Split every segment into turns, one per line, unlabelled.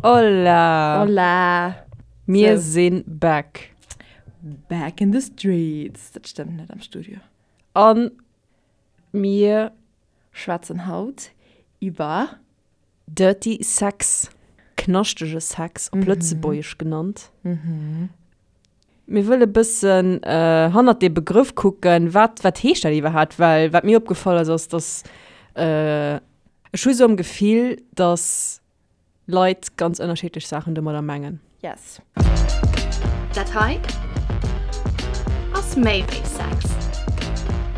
Hola!
Hola!
Mir so. sinn back.
Back in the streets. Dat stëmmt net am Studio.
An mir
schwätzen haut iwwer
Dirty Sex, knaschtege Sex op Lëtzebuergesch genannt. Mir wëlle bëssen hannert dee Begrëff kucken, wat, wat heescht dat iwwerhaapt? Well wat mir opgefall ass, ass, dass ech hu sou am Gefill, dass Leit ganz ënnerschiddlech Saachen domadder mengen.
Yes.
Dat hei ass méi wéi Sex.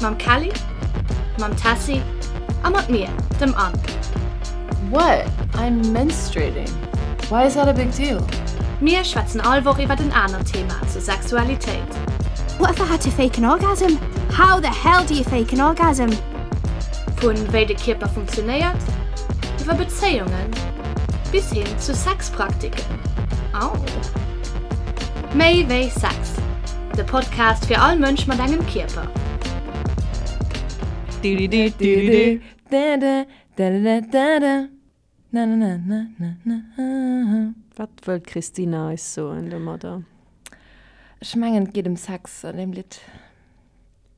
Mam Kelly, mam Tessy a mat mir, dem Anne.
What? I'm menstruating. Why is that a big deal?
Mir schwätzen all Woch iwwert en anert Thema zur Sexualitéit.
What if I had to fake an orgasm? How the hell do you fake an orgasm?
Vu wéi de Kierper funktionéiert, iwwer Bezéiungen bis hin zu Sexpraktiken. Au! Méi wéi Sex, de Podcast fir all Mënsch mat engem Kierper.
Wat wëll d'Christina eis soen domadder?
Ech mengen et geet ëm Sex an deem Lidd.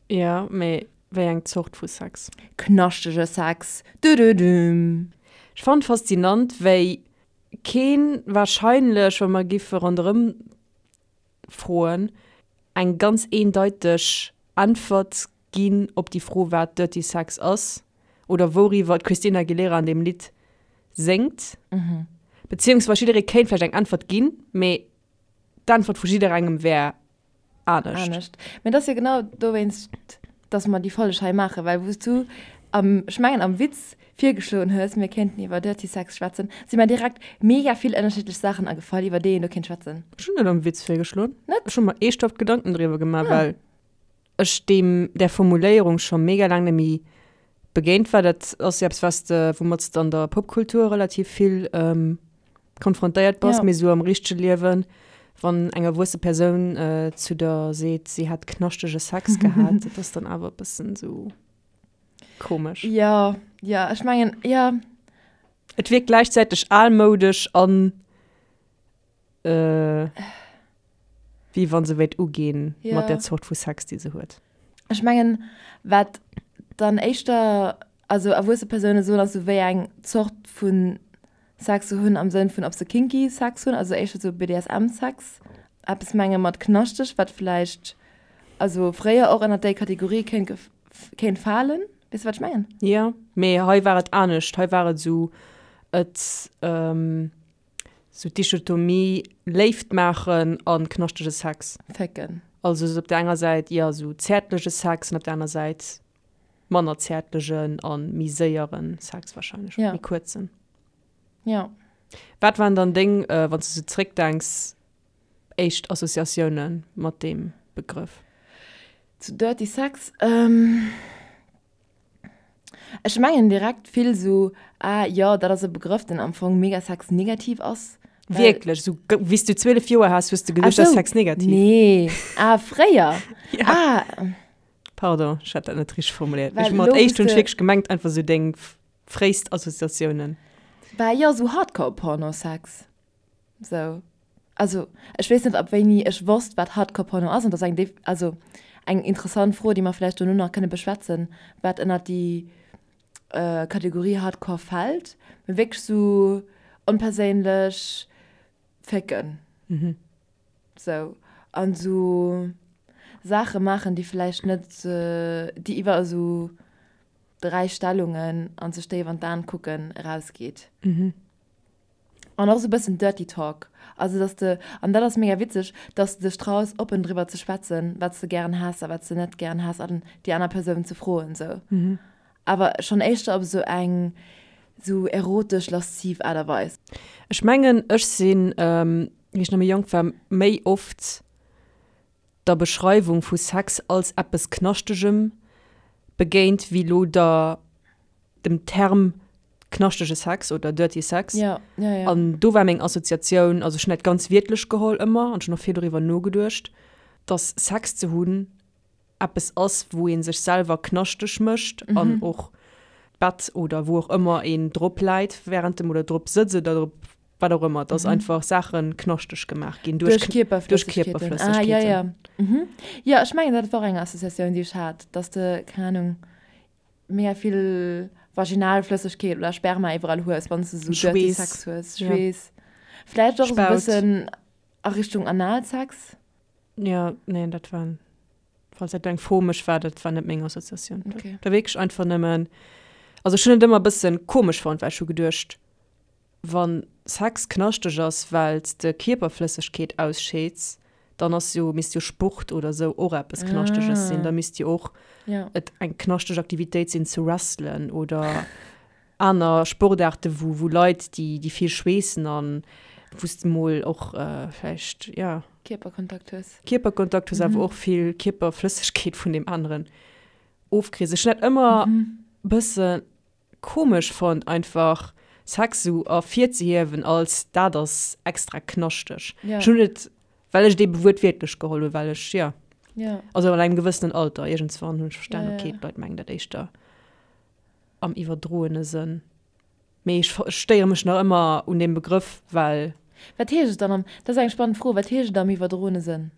Jo, mee wéi eng Zort vu Sex?
Knaschtege Sex, dududum.
Ech fannen faszinant wéi keen wahrscheinlech, wa mer giffe ronderëm froen, eng ganz eendeiteg Äntwert ginn op déi Fro wat Dirty Sex ass oder wouriwwer d'Christina Aguilera an deem Lidd séngt. Beziehungsweis jidderee kéint vläicht eng Äntwert ginn, mee d'Äntwert vu jidderengem wär anescht.
Anescht. Mä et ass jo genau dowéinst, dass mer déi Folg hei maachen, well wou s du am, ech mengen am Witz virgeschloen hues, mir kéinten iwwer Dirty Sex schwätzen, si mer direkt mega vill ënnerschiddlech Saachen agefall, iwwer déi een do kéint schwätzen.
Ech hunn net am Witz virgeschloen.
Net?
Ech hu mer eeschthaft Gedanken driwwer gemaach, well ech deem, där Formuléierung scho mega laang net méi begéint war. Dat ass jo eppes, wat s de, woumat s de an der Popkultur relativ vill konfrontéiert bass, ja. mee sou am richtege Liewen, wann eng erwuesse Persoun äh, zu der seet, si hätt knaschtege Sex gehat, dat ass dann awer e bëssen sou komesch.
Ja, ja, ech mengen, ja.
Et wierkt gläichzäiteg almoudesch an äh, wéi wann se wéilt uginn ja. mat der Zort vu Sex, déi se huet.
Ech mengen, wat dann éischter, also erwuesse Persoune soen, ass sou wéi eng Zort vun Sex ze hunn am Sënn vun ob se kinky Sex hunn, also éischter sou BDSM Sex, eppes menge mat knaschteg, wat vläicht also fréier och ënnert déi Kategorie kéint kéint falen. Weess de wat ech mengen?
Jo, mee hei war et anescht, hei war et esou et sou d'Dichotomie Léift maachen a knaschtege Sex.
Fécken.
Also sou op der enger Säit jo sou zäertlege Sex an op der aner Säit manner zäertlegen a méi séiere Sex wahrscheinlech,
ja.
méi kuerzen.
Ja.
Wat waren dann deng, äh, wann s du sou zréckdenks, éischt Associatioune mat deem Begrëff?
Zu Dirty Sex? Ähm, ech mengen direkt vill sou, ah jo, dat ass e Begrëff, deen am Fong mega sexnegativ ass.
Wierklech? Sou wéi s du 12 Joer has, hues du geduecht, dat ass sexnegativ?
Nee, ah fréier?
Ja.
Ah.
Pardon, ech hat dat net richteg formuléiert. Ech mat éischt hunn ech wierklech gemengt einfach sou deng fréist Associatiounen.
Bah jo, sou Hardcore-Porno-Sex. Sou. Also ech weess net ab wéini ech wosst wat Hardcore-Porno ass an dat ass eng also eng interessant Fro déi mer vläicht dono nach kënne beschwätzen, wat ënnert déi Kategorie Hardcore fält. Mee wierklech sou onperséinlech fécken. Sou, an esou Saache maachen, déi vläicht net, déi iwwer esou 3 Stellungen an sech déif an d'Aen kucken erausgeet. An och esou e bëssen Dirty Talk. Also dass de, an dat ass mega witzeg, dass de dech traus oppen driwwer ze schwätzen, wat s de gären häss a wat s de net gären häss an déi aner Persoun ze froen esou. Awer schonn éischter op esou eng esou erotesch, lasziv Aart a Weis.
Ech mengen, ech sinn, wéi ech nach méi jonk war, méi oft der Beschreiwung vu Sex als eppes Knaschtegem begéint, wéi lo der dem Term knaschtege Sex oder dirty Sex.
Ja, ja, ja.
An do war meng Assoziatioun, also ech hunn dat ganz wiertlech geholl ëmmer an ech hunn och vill doriwwer nogeduecht, dass Sex ze hunn eppes ass, wou ee sech selwer knaschteg mécht an och d'Bett oder wou och ëmmer een drop läit wärend dem oder drop sëtzt oder drop. Wat och ëmmer, dass einfach Saache knaschteg gemaach ginn duerch
Kierperflëssegkeeten.
Duerch
Ah, ja, ja. Mhm. Jo, ech mengen, dat war och eng Associatioun, déi ech hat, dass de, keng Anung, mega vill Vaginalflëssegkeet oder Sperma iwwerall hues, wann s de esou dirty
Schweess.
Sex hues.
Ja.
Schweess. Vläicht och esou e
Spaut.
bëssen a Richtung Analsex.
Ja, nee, dat war, falls dat eng Fro mech war, dat war net meng Associatioun.
Okay.
Da wierklech einfach nëmmen, also ech hunn et ëmmer e bëssen komesch fonnt, well ech hu geduecht, Wann Sex knaschteg ass well s de Kierperflëssegkeet ausscheeds, dann ass jo, misst jo Sport oder sou och eppes Knaschtëges sinn. Da misst jo och et eng knaschteg Aktivitéit sinn ze wrestlen oder aner Sportaarte wou wou Leit déi déi vill schweessen an wou s de mol och vläicht jo.
Kierperkontakt hues.
Kierperkontakt hues awer och vill Kierperflëssegkeet vun deem aneren ofkriss. Ech hunn dat ëmmer bësse Komesch fonnt einfach Sex sou ervirzehiewen als dat ass extra knaschteg.
Ja.
Ech hunn et well ech et ebe wuertwiertlech geholl hunn, well ech jo
Ja.
also an engem gewëssenen Alter iergendswann hunn ech verstan,
Ja, ja.
okay d'Leit mengen dat éischter am iwwerdroene Sënn. Mee ech stéiere mech nach ëmmer un deem Begrëff, well.
Wat heescht et dann am, dat ass eng spannend Fro, wat heescht et am iwwerdroene Sënn?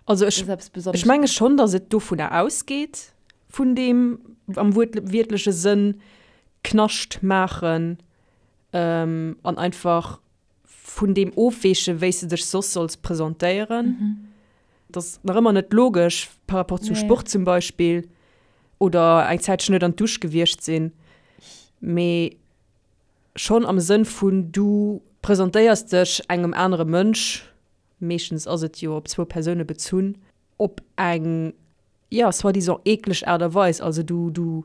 Also ech, ech menge schonn, datt et dovunner ausgeet, vun deem am wuertwiertleche Sënn Knascht maachen an einfach vun deem ofweechen, wéi s de dech soss solls presentéieren. Dat ass nach ëmmer net logesch par rapport zu Sport zum Beispill oder eng Zäitchen net an d'Dusch gewiescht sinn, mee schonn am Sënn vun du presentéiers dech engem anere Mënsch meeschtens ass et jo op zwou Persoune bezunn, op eng, jo, soi-disant eekleg Aart a Weis. Also du, du,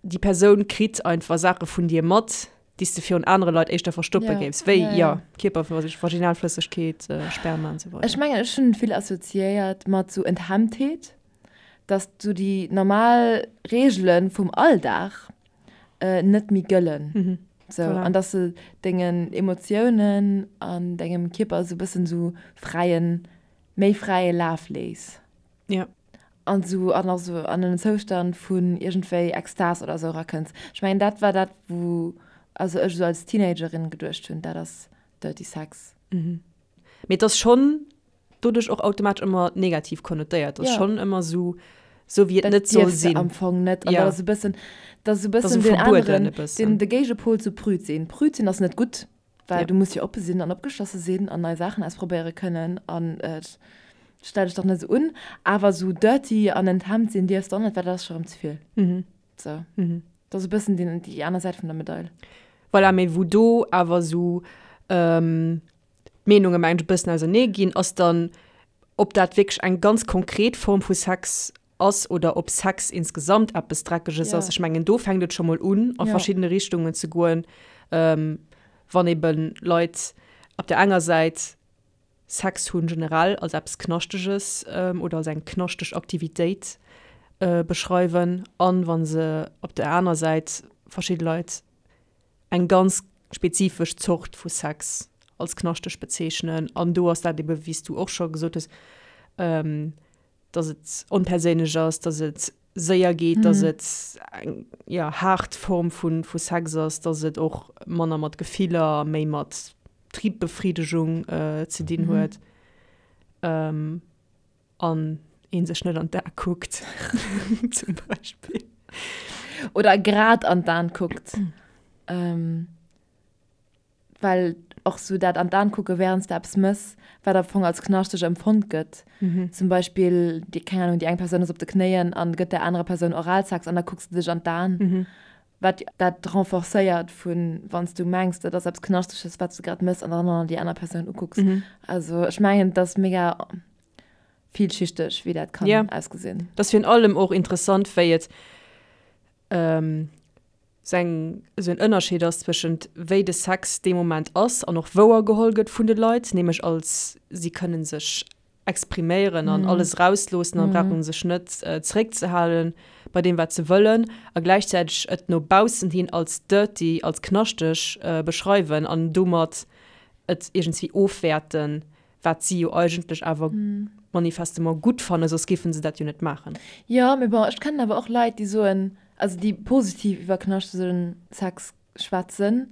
déi Persoun kritt einfach Saache vun dir mat, déi s de virun anere Leit éischter verstoppe géifs, wéi, jo, Kierper, Vaginalflëssegkeet, Sperma an esou weider.
Ech mengen, ech hunn et vill assoziéiert mat sou Enthemmtheet, dass sou déi normal Reegele vum Alldag net méi gëllen. Sou,
Voilà.
an dass de dengen Emotiounen an dengem Kierper sou bëssen sou fräien, méi fräie Laf léiss.
Ja.
An sou an och sou an en Zoustand vun iergendwéi Extas oder sou erakënns. Ech mengen dat war dat wou also ech sou als Teenagerin geduecht hunn, dat ass Dirty Sex.
Mee et ass schonn doduerch och automatesch ëmmer negativ konnotéiert. Ass
Ja.
schonn ëmmer sou, sou wéi et
Dat
net soll
dierfs de
sinn.
am Fong net. An
Ja.
dat ass e bëssen, dat ass e
Dat ass
bëssen
esou
den
verbueden
aneren,
e bëssen.
den, de Géigepol zu prüd sinn. Prüd sinn ass net gutt, well
Ja.
du muss jo oppe sinn an opgeschlosse sinn an nei Saachen ausprobéiere kënnen an äh, stell dech dach net esou un. Awer sou dirty an enthemmt sinn dierfs de och net, well dat ass scho rëm ze vill.
Mhm.
Sou.
Mhm.
Dat ass e bëssen den, déi aner Säit vun der Medail.
Voilà, mee wou do awer sou, ähm, d'Meenunge mengen ech e bëssen ausernee ginn, ass dann, ob dat wierklech eng ganz konkret Form vu Sex ass oder ob Sex insgesamt eppes Dreckeges ass. Ech mengen, do fänkt et scho mol un, a verschiddene Richtungen ze goen, wann ebe Leit op der enger Säit Sex hunn generell als eppes Knaschteges oder als eng knaschteg Aktivitéit beschreiwen an wa se op der aner Säit verschidde Leit eng ganz spezifesch Zort vu Sex als knaschteg bezeechnen. An do ass dat ebe wéi s du och scho gesot hues, dass et onperséinlech ass, dass et séier geet, dass et eng jo haart Form vu vu Sex ass, dass et och manner mat Gefiller a méi mat Triebbefridegung ze dinn huet. An een sech net an d'A kuckt, zum Beispill.
Oder grad an d'An kuckt. Ähm, well och sou dat an d'An kucke während s de eppes mëss, wat am Fong als knaschteg empfonnt gëtt. Zum Beispill, déi, keng Ahnung, déi eng Persoun ass op de Knéien an gëtt där anerer Persoun Oralsex an da kucks de dech an d'An. Wat dat renforcéiert vun, wann s du mengs, dat ass eppes Knaschtesches, wat s du grad mëss an dann och nach déi aner Persoun ukucks. Also ech mengen, et ass mega villschichteg, wéi dat kann
Ja.
ausgesinn.
Et ass virun allem och interessant, wéi et esou eng, esou en Ënnerscheed ass zwëschent wéi de Sex dee Moment ass an och wouergeholl gëtt vun de Leit, nämlech als si kënne sech expriméieren an alles erausloossen an brauchen sech net zeréckzehalen bei deem wat se wëllen a gläichzäiteg et no baussen hin als dirty, als knaschteg beschreiwen an domat et iergendswéi ofwäerten, wat si jo eigentlech awer manifestement gutt fannen, soss géifen se dat jo net maachen.
Jo, mee bon, ech kennen awer och Leit, déi soen, also déi positiv iwwer knaschtegen Sex schwätzen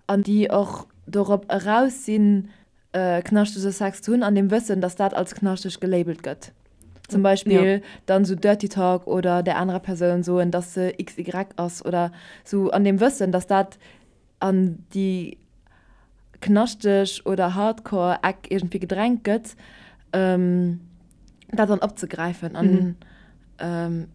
an déi och. dorop eraus sinn, knaschtege Sex ze hunn, an dem Wëssen, dass dat als knaschteg gelabelt gëtt. Zum Beispill ja. dann sou Dirty Talk oder der anerer Persoun soen, dass se XY ass oder sou an dem Wëssen, dass dat an déi knaschteg oder Hardcore Eck iergendwéi gedrängt gëtt, ähm, dat dann opzegräifen. An mhm. ähm,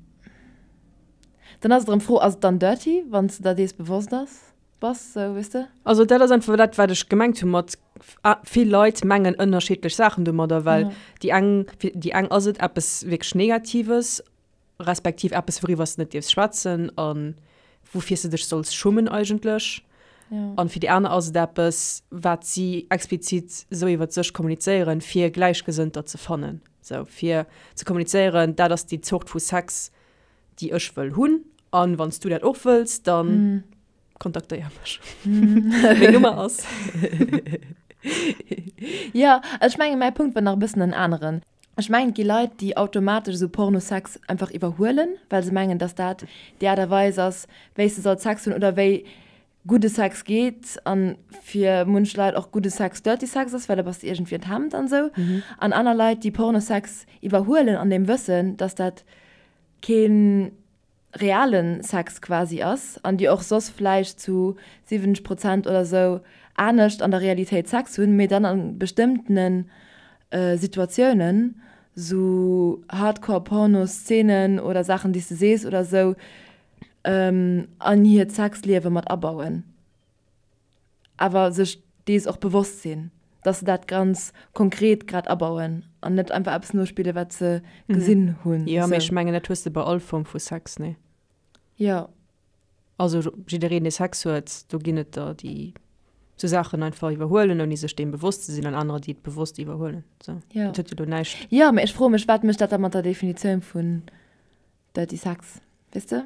dann ass et erëm d'Fro, ass et dann dirty, wann s de der dees bewosst ass? Bass, sou, weess de?
Also dat ass einfach dat, wat ech gemengt hu mat vill Leit mengen ënnerschiddlech Saachen domadder, well déi eng, fir déi eng ass et eppes wierklech Negatives, respektiv eppes wouriwwer s de net dierfs schwätzen a woufir s de dech solls schummen eigentlech. An fir déi aner ass et eppes, wat si explizit esou iwwer sech kommunizéieren, fir Gläichgesënnter ze fannen, sou fir ze kommunizéieren, dat ass déi Zort vu Sex, déi ech wëll hunn an wann s du dat och wëlls, dann kontaktéier mech. Meng Nummer ass.
Jo, ech mengen mäi Punkt war nach e bëssen en aneren. Ech mengen et gi Leit, déi automatesch esou Pornosex einfach iwwerhuelen, well se mengen, datt dat déi Aart a Weis ass, wéi s de solls Sex hunn oder wéi gudde Sex geet an fir munch Leit och gudde Sex dirty Sex ass, well da bass de iergendwéi enthemmt an esou. An aner Leit, déi Pornosex iwwerhuelen an dem Wëssen, datt dat kee reale Sex quasi ass an déi och soss vläicht zu 70 Prozent oder esou anescht an der Realitéit Sex hunn, mee dann a bestëmmtene Situatiounen, sou Hardcore-Porno-Szenen oder Saachen, déi s de sees oder esou, an hiert Sexliewe mat abauen. Awer sech dees och bewosst sinn, dass se dat ganz konkret grad abauen an net einfach eppes nospillen, wat se gesinn hunn.
Jo, mee ech mengen, dat hues de bei all Form vu Sex, nee?
Jo.
Also jiddereen, dee Sex huet, do ginn et der, déi sou Saachen einfach iwwerhuelen, ouni sech deem bewosst ze sinn, an anerer, déi et bewosst iwwerhuelen. Sou,
Jo.
dat huet jo do näischt.
Jo, mee ech froe mech, wat mécht dat da mat der Definitioun vun Dirty Sex, weess de?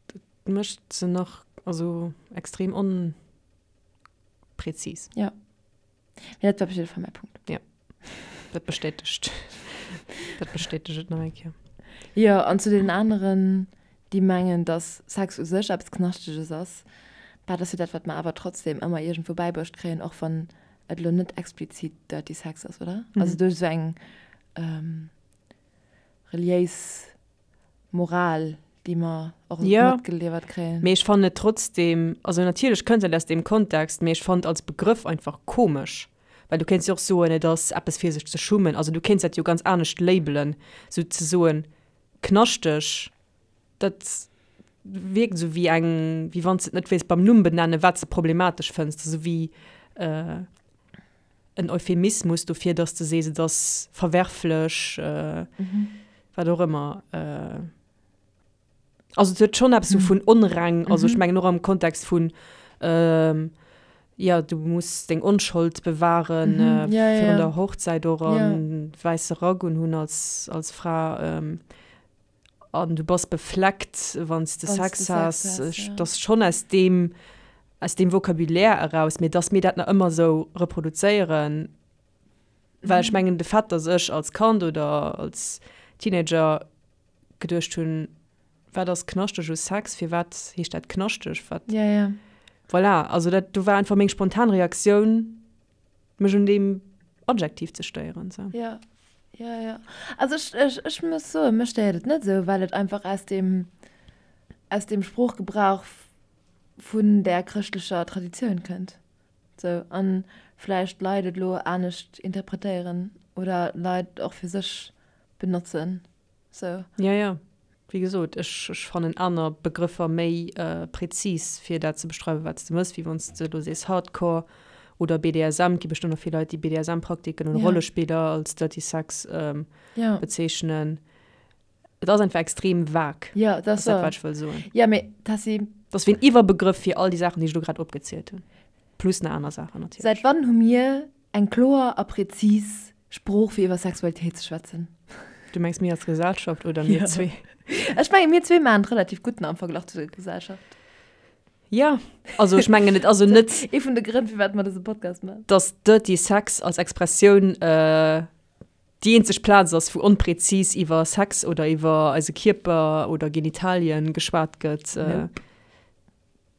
Dat mécht se nach, also extrem onpräzis.
Jo. Mee dat war op jidde Fall mäi Punkt.
Jo. Dat bestätegt, dat bestätegt et nach eng Kéier.
Jo, an zu deenen aneren, déi mengen, dass Sex u sech eppes Knaschteges ass, bah, dat ass jo dat, wat mer awer trotzdem ëmmer iergendwou bäibruecht kréien, och wann et elo net explizit Dirty Sex ass, oder? Also duerch esou eng reliéis Moral, déi mer och
Ja,
matgeliwwert kréien.
mee ech fannen et trotzdem, also natierlech kënnt dat aus deem Kontext, mee ech fannen et als Begrëff einfach komesch, well du kéints jo och soen, et ass eppes fir sech ze schummen, also du kéints dat jo ganz anescht labelen, sou ze soen knaschteg, dat wierkt esou wéi eng, wéi wann s de et net wéilts beim Numm benennen, wat s de problematesch fënns, esou wéi en Euphemismus dofir, dass de sees, et ass verwerflech, wat och ëmmer. Also et huet schonn eppes esou vun onreng, also ech mengen och am Kontext vun, jo, du muss deng Onschold bewahren virun der Hochzäit och an wäisse Rack unhunn als als Fra. An du bass befleckt, wann s de Sex has. Dat ass schonn aus deem, aus deem Vocabulaire eraus. Mee dass mir dat nach ëmmer esou reproduzéieren, well ech mengen, de Fait, dass ech als Kand oder als Teenager geduecht hunn, wat ass knaschteg u Sex, firwat heescht dat knaschteg, wat, voilà, also dat do war einfach meng spontan Reaktioun. mech un deem Adjektiv ze stéieren. Sou.
Ja, ja, ja. Also ech, ech, ech muss soen, mech stéiert et net esou, well et einfach aus dem, aus dem Sproochgebrauch vun där chrëschtlecher Traditioun kënnt. Sou, an vläicht Leit et elo anescht interpretéieren oder Leit och fir sech benotzen. Sou.
Ja, ja. Wéi gesot, ech, ech fannen aner Begrëffer méi prezis, fir dat ze beschreiwen, wat s de mëss, wéi wann s de elo sees Hardcore oder BDSM. Et gi bestëmmt och vill Leit, déi BDSM-Praktiken oder Rollespiller als Dirty Sex bezeechnen. Et ass einfach extrem vag.
Jo, dat ass
dat, wat ech wëll soen.
Jo, mee Tessy.
Et ass wéi en Iwwerbegrëff fir all déi Saachen, déi ech elo grad opgezielt hunn. Plus nach aner Saachen
natierlech. Säit wann hu mir eng kloer a prezis Sprooch fir iwwer Sexualitéit ze schwätzen?
Du mengs mir als Gesellschaft oder mir zwee?
Ech menge mir zwee maachen et relativ gutt am Verglach zu der Gesellschaft.
Jo, also ech mengen et ass jo net.
Ee vun de Grënn firwat mer dëse Podcast maachen.
Datt Dirty Sex als Expressioun déi eenzeg Plaz ass wou onprezis iwwer Sex oder iwwer eise Kierper oder Genitalien geschwat gëtt.
Nope.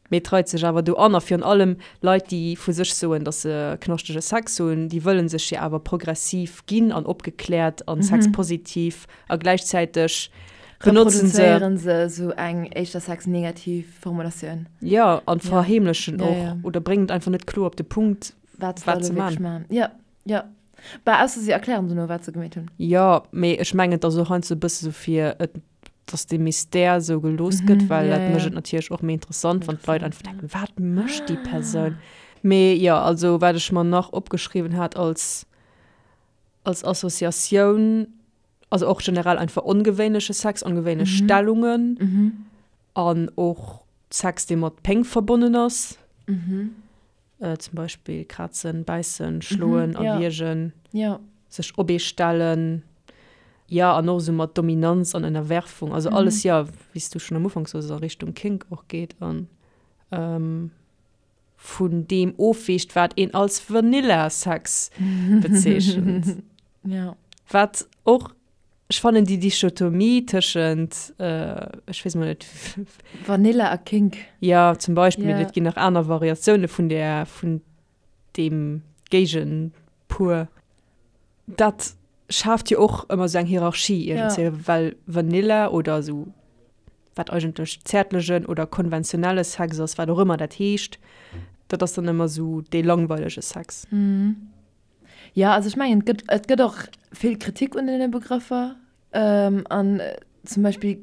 Mee et reit sech awer do an. A virun allem Leit, déi vu sech soen, datt se knaschtege Sex hunn, déi wëlle sech jo awer progressiv ginn an opgekläert a sexpositiv a gläichzäiteg benotzen se.
Reproduzéieren se esou eng éischter sexnegativ Formulatioun.
Jo, an verheemlechen och oder bréngen et einfach net kloer op de Punkt,
wat se maachen. Jo, jo. Bah, ausser si erklären dono, wat se gemeet hunn.
Jo, mee ech mengen, et ass och heiansdo e bësse sou fir et, dass dee Mystère esou gelooss gëtt, well dat mécht et natierlech och méi interessant, wann d'Leit einfach denken, wat mécht déi Persoun? Mee jo, also wat ech mer nach opgeschriwwen hat als, als Associatioun, also och generell einfach ongewéinleche Sex, ongewéinlech Stellungen an och Sex, dee mat Péng verbonnen ass. Zum Beispill krazen, bäissen, schloen, erwiergen, sech op ee stellen. Jo, an och esou mat Dominanz an Ënnerwerfung. Also alles, jo, wéi s du schonn am Ufank soos, a Richtung Kink och geet an vun deem ofweecht, wat een als Vanilla-Sex bezeechent. Wat och Ech fannen déi Dichotomie tëschent, ech weess mol net.
Vanilla a Kink.
Jo, zum Beispill, mee et ginn nach aner Variatioune vun där, vun deem Géigenpuer. Dat schaaft jo och ëmmer esou eng Hierarchie iergendzwéi, well Vanilla oder esou, wat eigentlech zäertlegen oder konventionelle Sex ass, wat och ëmmer dat heescht, dat ass dann ëmmer esou dee langweilege Sex.
Jo, also ech mengen, et gëtt, et gëtt och vill Kritik un deene Begrëffer. An zum Beispill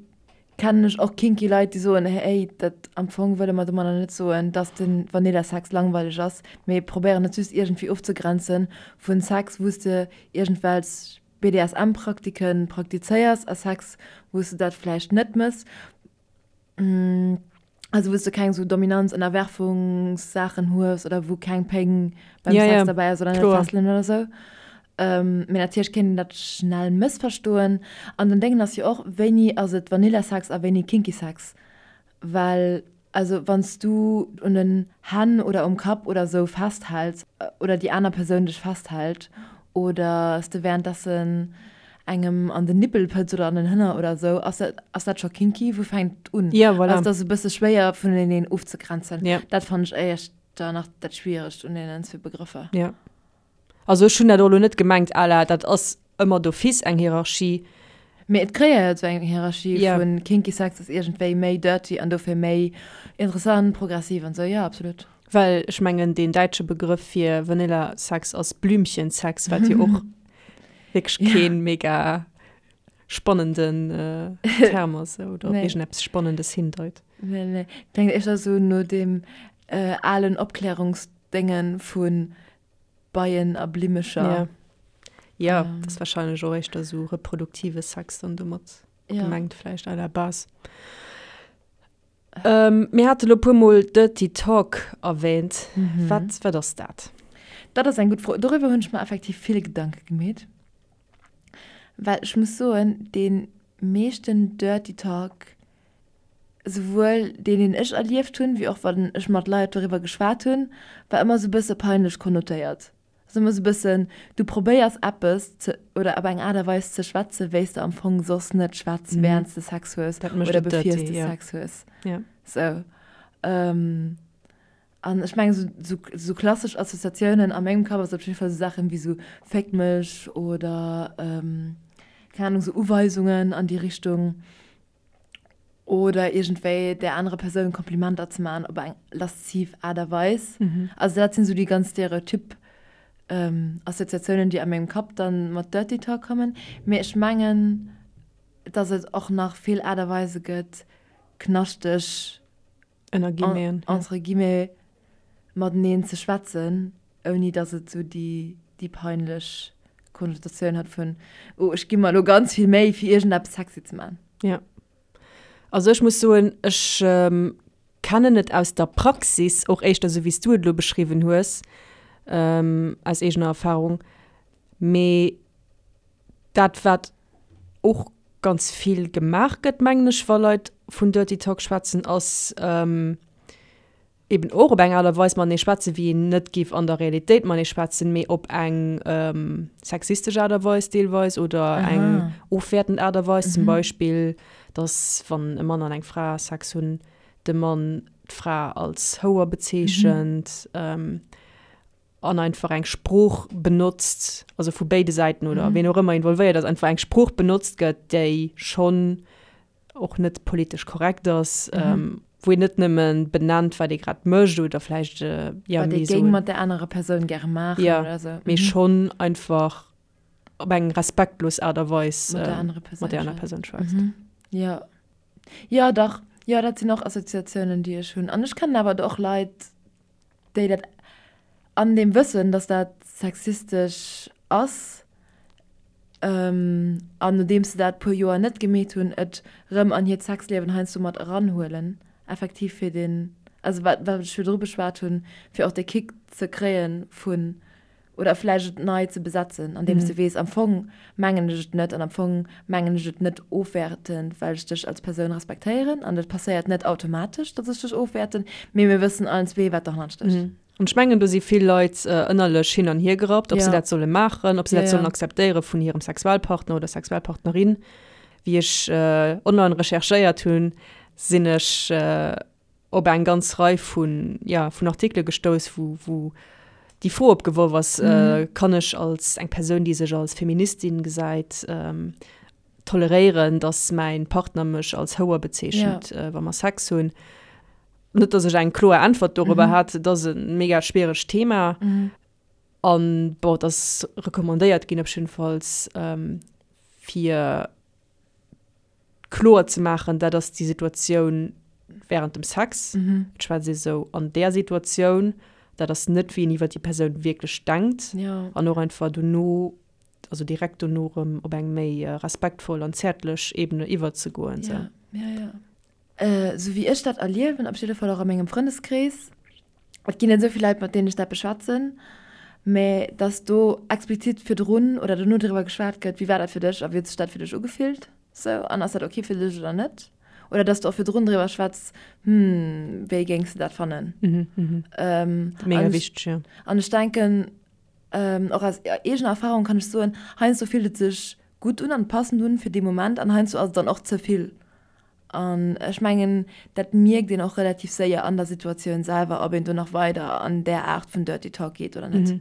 kennen ech och kinky Leit, déi soen, hey, dat am Fong wëlle mer domadder net soen, dass de Vanilla-Sex langweileg ass, mee probéieren et just iergendwéi ofzegrenze vu Sex, wou s de iergendwelch BDSM-Praktike praktizéiers a Sex, wou s de dat vläicht net méchs. Also wou s du keng sou Dominanz Ënnerwerfungssaachen hues oder wou keng Péng beim
Ja,
Sex
ja,
derbäi ass oder net
kloer.
Fesselen oder sou. Ähm, mee natierlech kéint een dat schnell mëssverstoen. An den Déngen ass jo och, wéini ass et Vanilla-Sex a wéini Kinky Sex? Well also wann s du un den Hänn oder um Kapp oder sou festhäls oder déi aner Persoun dech festhält oder s de währenddessen engem an den Nippel pëtz oder an den Hënner oder esou, ass dat, ass dat scho kinky? Wou fänkt et un?
Ja, voilà.
Also, et ass e bësse schwéier vuneneen ofzegrenzen.
Ja.
Dat fannen ech éischter nach dat Schwieregst un deenen zwee Begrëffer.
Ja. Also ech hunn dat och elo net gemengt à la dat ass ëmmer d'office eng Hierarchie.
Mee et kreéiert esou eng Hierarchie
Ja.
vun kinky Sex ass iergendwéi méi dirty an dofir méi interessant, progressiv an esou. Ja, absolut.
Well ech mengen deen däitsche Begrëff fir Vanilla Sex ass Blümchensex, wat jo och wierklech keen mega spannenden Term ass oder op iergendeppes Spannendes hindeit.
Nee, nee. Kléngt éischter esou no deem alen Opklärungsdénge vu Beien a Blimmecher.
Ja, ja, dat ass warscheinlech och éischter esou reproduktive Sex dann domat gemengt vläicht à la base. Mir hate lo puermol Dirty Talk erwähnt. Wat, wat ass dat?
Dat ass eng gutt Fro. Doriwwer hunn ech mer effektiv vill Gedanke gemeet. Well ech muss soen, dee meeschten Dirty Talk, souwuel deen, deen ech erlieft hunn, wéi och wann ech mat Leit doriwwer geschwat hunn, war ëmmer esou e bësse peinlech konnotéiert. Ass ëmmer sou bëssen, du probéiers eppes ze, oder op eng Aart a Weis ze schwätzen, wéi s de am Fong soss net schwätz, während s de Sex hues
Dat mécht
oder
et
bevir s
dirty,
de
ja.
Sex hues.
Ja.
Sou. An ech mengen, sou, sou, sou klassesch Assoziatiounen a mengem Kapp ass op jidde Fall sou Saachen wéi sou Féck mech oder, keng Ahnung, sou Uweisungen an déi Richtung. Oder iergendwéi där anerer Persoun Komplimenter ze maachen op eng lasziv Aart a Weis. Also dat sinn esou déi ganz stereotyp Assoziatiounen, déi a mengem Kapp dann mat Dirty Talk kommen. Mee ech mengen, dass et och nach vill Aart a Weise gëtt, knaschteg
Ënner Guillemeten,
ja. Entre guillemets, mateneen ze schwätzen, ouni dass et esou déi, déi peinlech Konnotatioun hat vun, oh, ech gi mer elo ganz vill Méi, fir iergendeppes sexy ze maachen.
Ja. Also ech muss soen, ech kennen et aus der Praxis, och éischter esou wéi s du et elo beschriwwen hues, aus eegener Erfahrung, mee dat wat och ganz vill gemaach gëtt, mengen ech, wa Leit vun Dirty Talk schwätzen, ass eben och op eng Aart a Weis matenee schwätzen, wéi een net géif an der Realitéit matenee schwätzen, mee op eng sexistesch Aart a Weis deelweis oder eng ofwäertend Aart a Weis. Zum Beispill, dass wann e Mann an eng Fra Sex hunn, de Mann. d'Fra als Houer bezeechent an einfach eng Sprooch benotzt, also vu béide Säiten oder ween och ëmmer involvéiert ass, einfach eng Sprooch benotzt gëtt, déi schonn och net politesch korrekt ass, wou een net nëmme benennt, wat ee grad mécht oder vläicht,
jo, wat ee géing mat där anerer Persoun gäre maachen oder
esou, mee schonn einfach op eng respektlos Aart a Weis mat där anerer Persoun schwätzt.
Jo. Jo, dach. Jo, dat sinn och Assoziatiounen, déi ech hunn. An ech kennen awer och Leit, déi dat an deem Wëssen, dass dat sexistesch ass, an nodeems se dat puer Joer net gemeet hunn, et rëm an hiert Sexliewen heiansdo mat eranhuelen, effektiv fir deen, also wat wat ech virdru beschwat hunn, fir och dee Kick ze kréie vun oder vläicht et nei ze besetzen, andeems de weess, am Fong mengen ech et net an am Fong mengen ech et net ofwäertend, well ech dech als Persoun respektéieren an et passéiert net automatesch, datt ech dech ofwäerten, mee mir wëssen allen zwee, wat derhannert stécht.
An ech mengen, do si vill Leit ënnerlech hin an hier gerappt, ob se dat solle maachen, ob se dat sollen akzeptéiere vun hirem Sexualpartner oder Sexualpartnerin. Wéi ech online recherchéiert hunn, sinn ech op eng ganz Rei vun, ja, vun Artikele gestouss, wou, wou déi Fro opgeworf ass, Kann ech als eng Persoun, déi sech als Feministin gesäit, toleréieren, datt mäin Partner mech als Houer bezeechent, wa mer Sex hunn? Net, datt ech eng kloer Äntwert dorobber hätt, et ass e mega schwieregt Thema. An bon, et ass recommandéiert ginn op jiddefalls, fir kloer ze maachen, dat ass déi Situatioun während dem Sex, et schwätzt ee sou an där Situatioun, dat ass net wéi een iwwer déi Persoun wierklech denkt an och einfach dono, also direkt dono erëm op eng méi respektvoll an zäertlech Ebene iwwerzegoen.
Ja, ja, ja. Sou wéi ech dat erliewen, op jidde Fall och a mengem Frëndeskrees, Et ginn net esou vill Leit, mat deenen ech dat beschwätzen, mä dass do explizit virdrun oder dono driwwer geschwat gëtt, wéi war dat fir dech a wéi huet sech dat fir dech ugefillt, sou, an ass dat ok fir dech oder net? Oder dass du och virdrun driwwer schwätz, hm, wéi géings de dat fannen?
Mega wichteg, jo.
An ech denken, och aus eegener Erfahrung kann ech soen, heiansdo fillt et sech gutt un an passend un fir dee Moment an heiansdo ass et dann och ze vill. An ech mengen, dat mierkt een och relativ séier an der Situatioun selwer, ob een do nach weider an där Aart vun Dirty Talk geet oder net.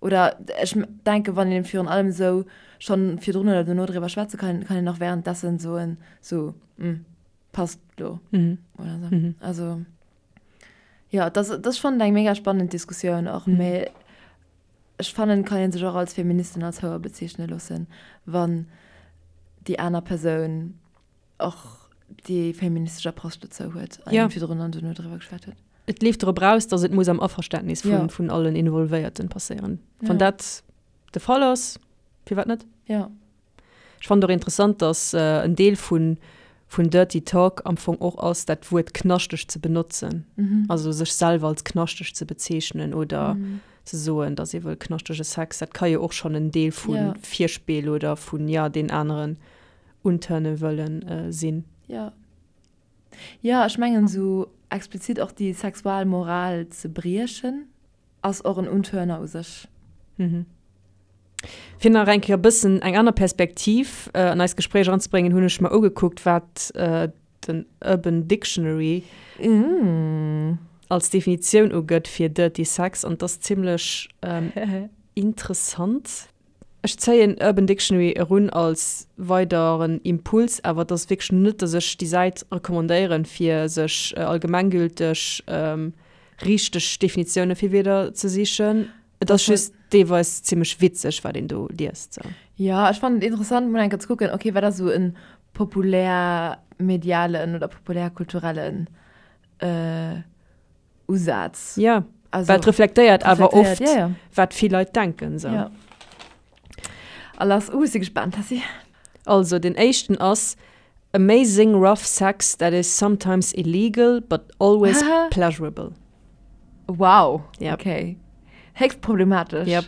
Oder ech denken, wann een virun allem esou schonn virdrun oder dono driwwer schwätze kann, kann een och währenddessen soen, sou, hm, passt lo oder sou. Also, jo, dat ass, dat ass schonn eng mega spannend Diskussioun och, mee ech fannen, et kann ee sech och als Feministin als Houer bezeechne loossen, wann déi aner Persoun och déi feministesch Approche dozou huet an ja. virdrun an duerno driwwer geschwat huet.
Et leeft drop raus, datt et muss am Averständnis vun, ja. vun allen Involvéierten passéieren. Ja. Wann dat de Fall ass, firwat net?
Ja.
Ech fannen och interessant, datt äh, en Deel vun, vun Dirty Talk am Fong och ass, dat Wuert knaschteg ze benotzen. Mhm. Also sech selwer als knaschteg ze bezeechnen oder mhm. ze soen, datt ee wëll knaschtege Sex. Dat ka jo och schonn en Deel vu ja. Virspill oder vun ja, deen aneren untörne wëllen sinn.
Jo. Jo, ech mengen esou explizit och déi Sexualmoral ze briechen ass och en Untörner u sech.
Fir nach eng Kéier e bëssen eng aner Perspektiv an eist Gespréich eranzebréngen, hunn ech mer ugekuckt, wat den Urban Dictionary als Definitioun ugëtt fir Dirty Sex an 't ass zimmlech interessant. Ech zéien Urban Dictionary erun als weideren Impuls, awer et ass wierklech net, dass ech déi Säit recommandéieren, fir sech allgemenggülteg richteg Definitioune fir Wierder ze sichen. Et ass just deelweis zimmlech witzeg, wat een do liest. Sou.
Jo, ech fannen et interessant, mol eng Kéier ze kucken, ok, wat ass esou e populär-medialen oder populär-kulturellen Usaz.
Ja, also, well et reflektéiert awer oft, ja, ja. wat vill Leit denken. So.
Ja. A lass, uh, si gespannt, Tessy.
Also, den éischten ass Amazing rough sex that is sometimes illegal but always pleasurable.
Wow, yep. okay. Héchst problematesch.
Yep.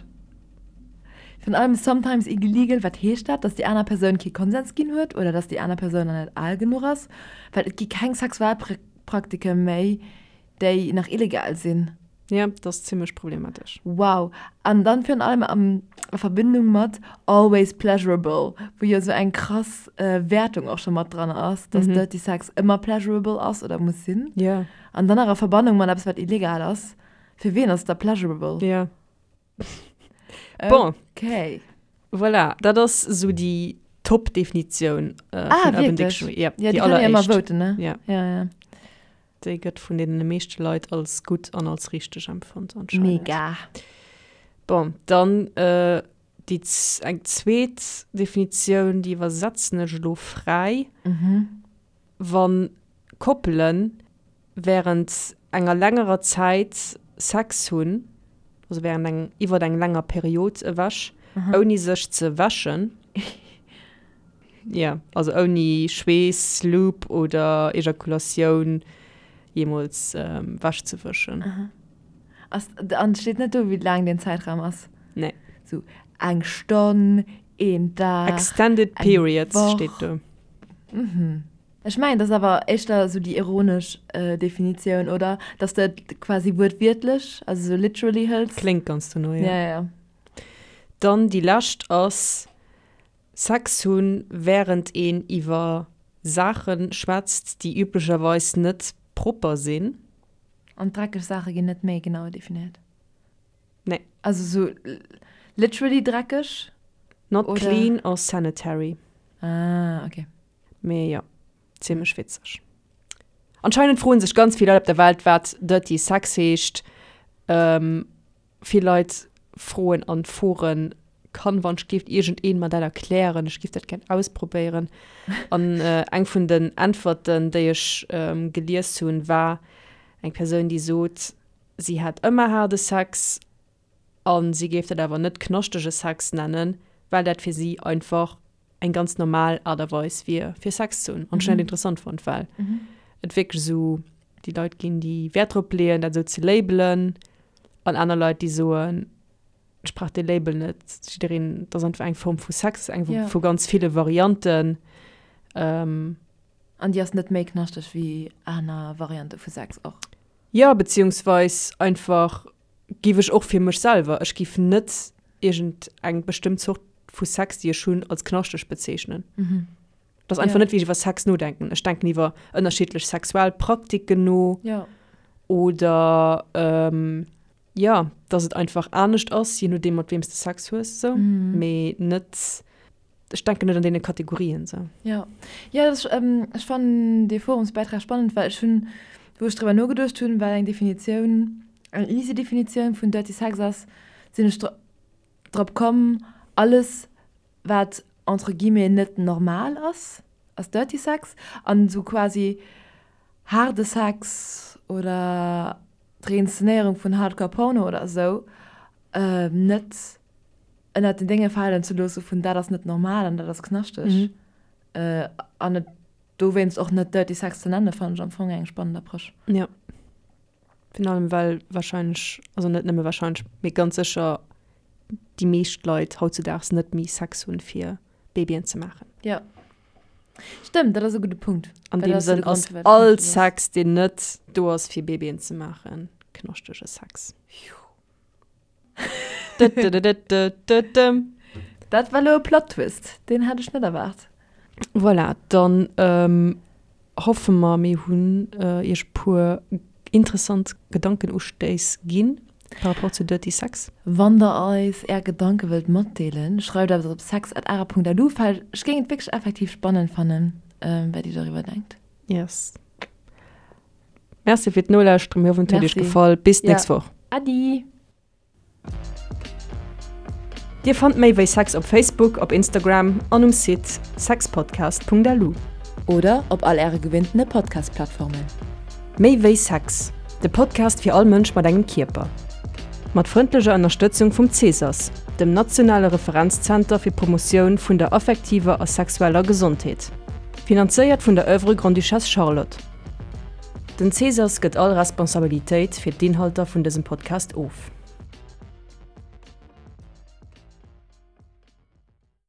Virun allem sometimes illegal, wat heescht dat? Dass déi aner Persoun kee Konsens ginn huet oder dass déi aner Persoun nach net al genuch ass? Well et gi keng Sexualpraktiken méi, déi nach illegal sinn.
Ja, dat ass zimmlech problematesch.
Wow. An dann virun allem am a Verbindung mat always pleasurable, wou jo sou eng krass Wäertung och scho mat dran ass, dass Dirty Sex ëmmer pleasurable ass oder muss sinn.
Ja.
An dann nach a Verbannung mat eppes, wat illegal ass. Fir wien ass et da pleasurable?
Ja. Bon.
Okay.
Voilà, dat ass sou déi Top-Definitioun
vun ah, Urban Dictionary.
Ja,
ja, déi kann ëmmer voten, ne?
Ja.
Ja, ja.
Déi gëtt vun deene meeschte Leit als gutt an als richteg empfonnt anscheinend.
Mega.
Bon, dann äh, déi eng zweet Definitioun, déi iwwersetzen ech elo fräi.
Mhm.
Wann Koppelen während enger längerer Zäit Sex hunn, also während eng, iwwert eng länger Period ewech, ouni sech ze wäschen, jo, also ouni Schweess, Lube oder Ejakulatioun jeemools wech ze wëschen.
Ass, an et steet net do, wéi laang deen Zäitraum ass?
Nee.
Sou eng Stonn, een Dag,
Extended
eng
periods
Woch?
steet do.
Mhm. Ech mengen, dat ass awer éischter esou déi ironesch Definitioun, oder? Dass de et quasi wuertwiertlech, also esou literally hëls.
Kléngt ganz dono,
jo. Ja, ja.
Dann déi lescht ass, Sex hunn, wärend een iwwer Saache schwätzt, déi üblecherweis net propper sinn.
An dreckeg Saache ginn net méi genau definéiert?
Nee.
Also esou literally dreckeg?
Not clean or sanitary.
Ah, okay.
Mee jo, zimmlech witzeg. Anscheinend froen sech ganz vill Leit op der Welt, wat Dirty Sex heescht. Vill Leit froen an Foren, Kann wann ech géif iergendeen mer dat erklären? Ech géif dat gär ausprobéieren. An eng vun den Äntwerten, déi ech gelies hunn, war eng Persoun, déi sot, si hätt ëmmer haarde Sex a si géif dat awer net knaschtege Sex nennen, well dat fir si einfach eng ganz normal Aart a Weis wier, fir Sex ze hunn. An ech hunn dat interessant fonnt, well et wierklech esou déi Leit ginn, déi Wäert drop leeën, dat esou ze labelen, an aner Leit, déi soen, ech brauch dee Label net, jiddereen, dat ass einfach eng Form vu Sex, eng vu ganz ville Varianten.
An déi ass net méi knaschteg wéi aner Variante vu Sex och.
Jo, beziehungsweis einfach Giff ech och fir mech selwer. Ech giff net iergend eng bestëmmt Zort vu Sex, déi ech hunn, als knaschteg bezeechnen. Dat ass einfach net, wéi ech iwwer Sex nodenken. Ech denken iwwer ënnerschiddlech sexuell Praktiken no. Oder, jo, dass et einfach anescht ass, je nodeem, mat weem s de Sex hues, esou. Mee net. Ech denken net an deene Kategorien sou.
Jo, jo, dat ass, ech fannen dee Forumsbäitrag spannend, well ech hunn, wou ech driwwer nogeduecht hunn, wat eng Definitioun, eng easy Definitioun vun Dirty Sex ass, sinn ech drop komm, alles wat entre guillemets net normal ass, ass Dirty Sex an esou quasi haarde Sex oder d'Reinszenéierung vun Hardcore Porno oder esou net ënnert den Dénge falen ze loosse vun dat ass net normal an dat ass knaschteg an et dowéinst och net Dirty Sex ze nennen, fannen ech am Fong eng spannend Approche.
Jo, virun allem well wahrscheinlech, also net nëmme wahrscheinlech, mee ganz sécher déi meescht Leit hautzudaags net méi Sex hunn, fir Babyen ze maachen.
Jo, stëmmt, dat ass e gudde Punkt.
An deem Sënn ass all Sex, deen net do ass, fir Babyen ze maachen, knaschtege Sex.
Dat war elo e Plot Twist, deen hat ech net erwaart.
Voilà, dann hoffe mer, mir hunn iech e puer interessant Gedankenustéiss ginn par rapport zu Dirty Sex.
Wann der eis är Gedanke wëllt matdeelen, schreift eis op sex@ara.lu. Well ech géing et wierklech effektiv spannend fannen, wat dir doriwwer denkt.
Yes. Merci fir d'Nolauschteren, mir hoffen et huet iech gefall. Bis d'nächst Woch.
Adi!
Dir fannt méi wéi Sex op Facebook, op Instagram an um Site sexpodcast.lu.
Oder op all äre gewinntene Podcast-Plattformen.
Méi wéi Sex, de Podcast fir all Mënsch mat engem Kierper. Mat frëndlecher Ënnerstëtzung vum Cesas, dem nationale Referenzzenter fir d'Promotioun vun der affektiver a sexueller Gesondheet. Finanzéiert vun der Oeuvre Grande-Duchesse Charlotte. Den Cesas gëtt all Responsabilitéit fir d'Inhalter vun dësem Podcast of.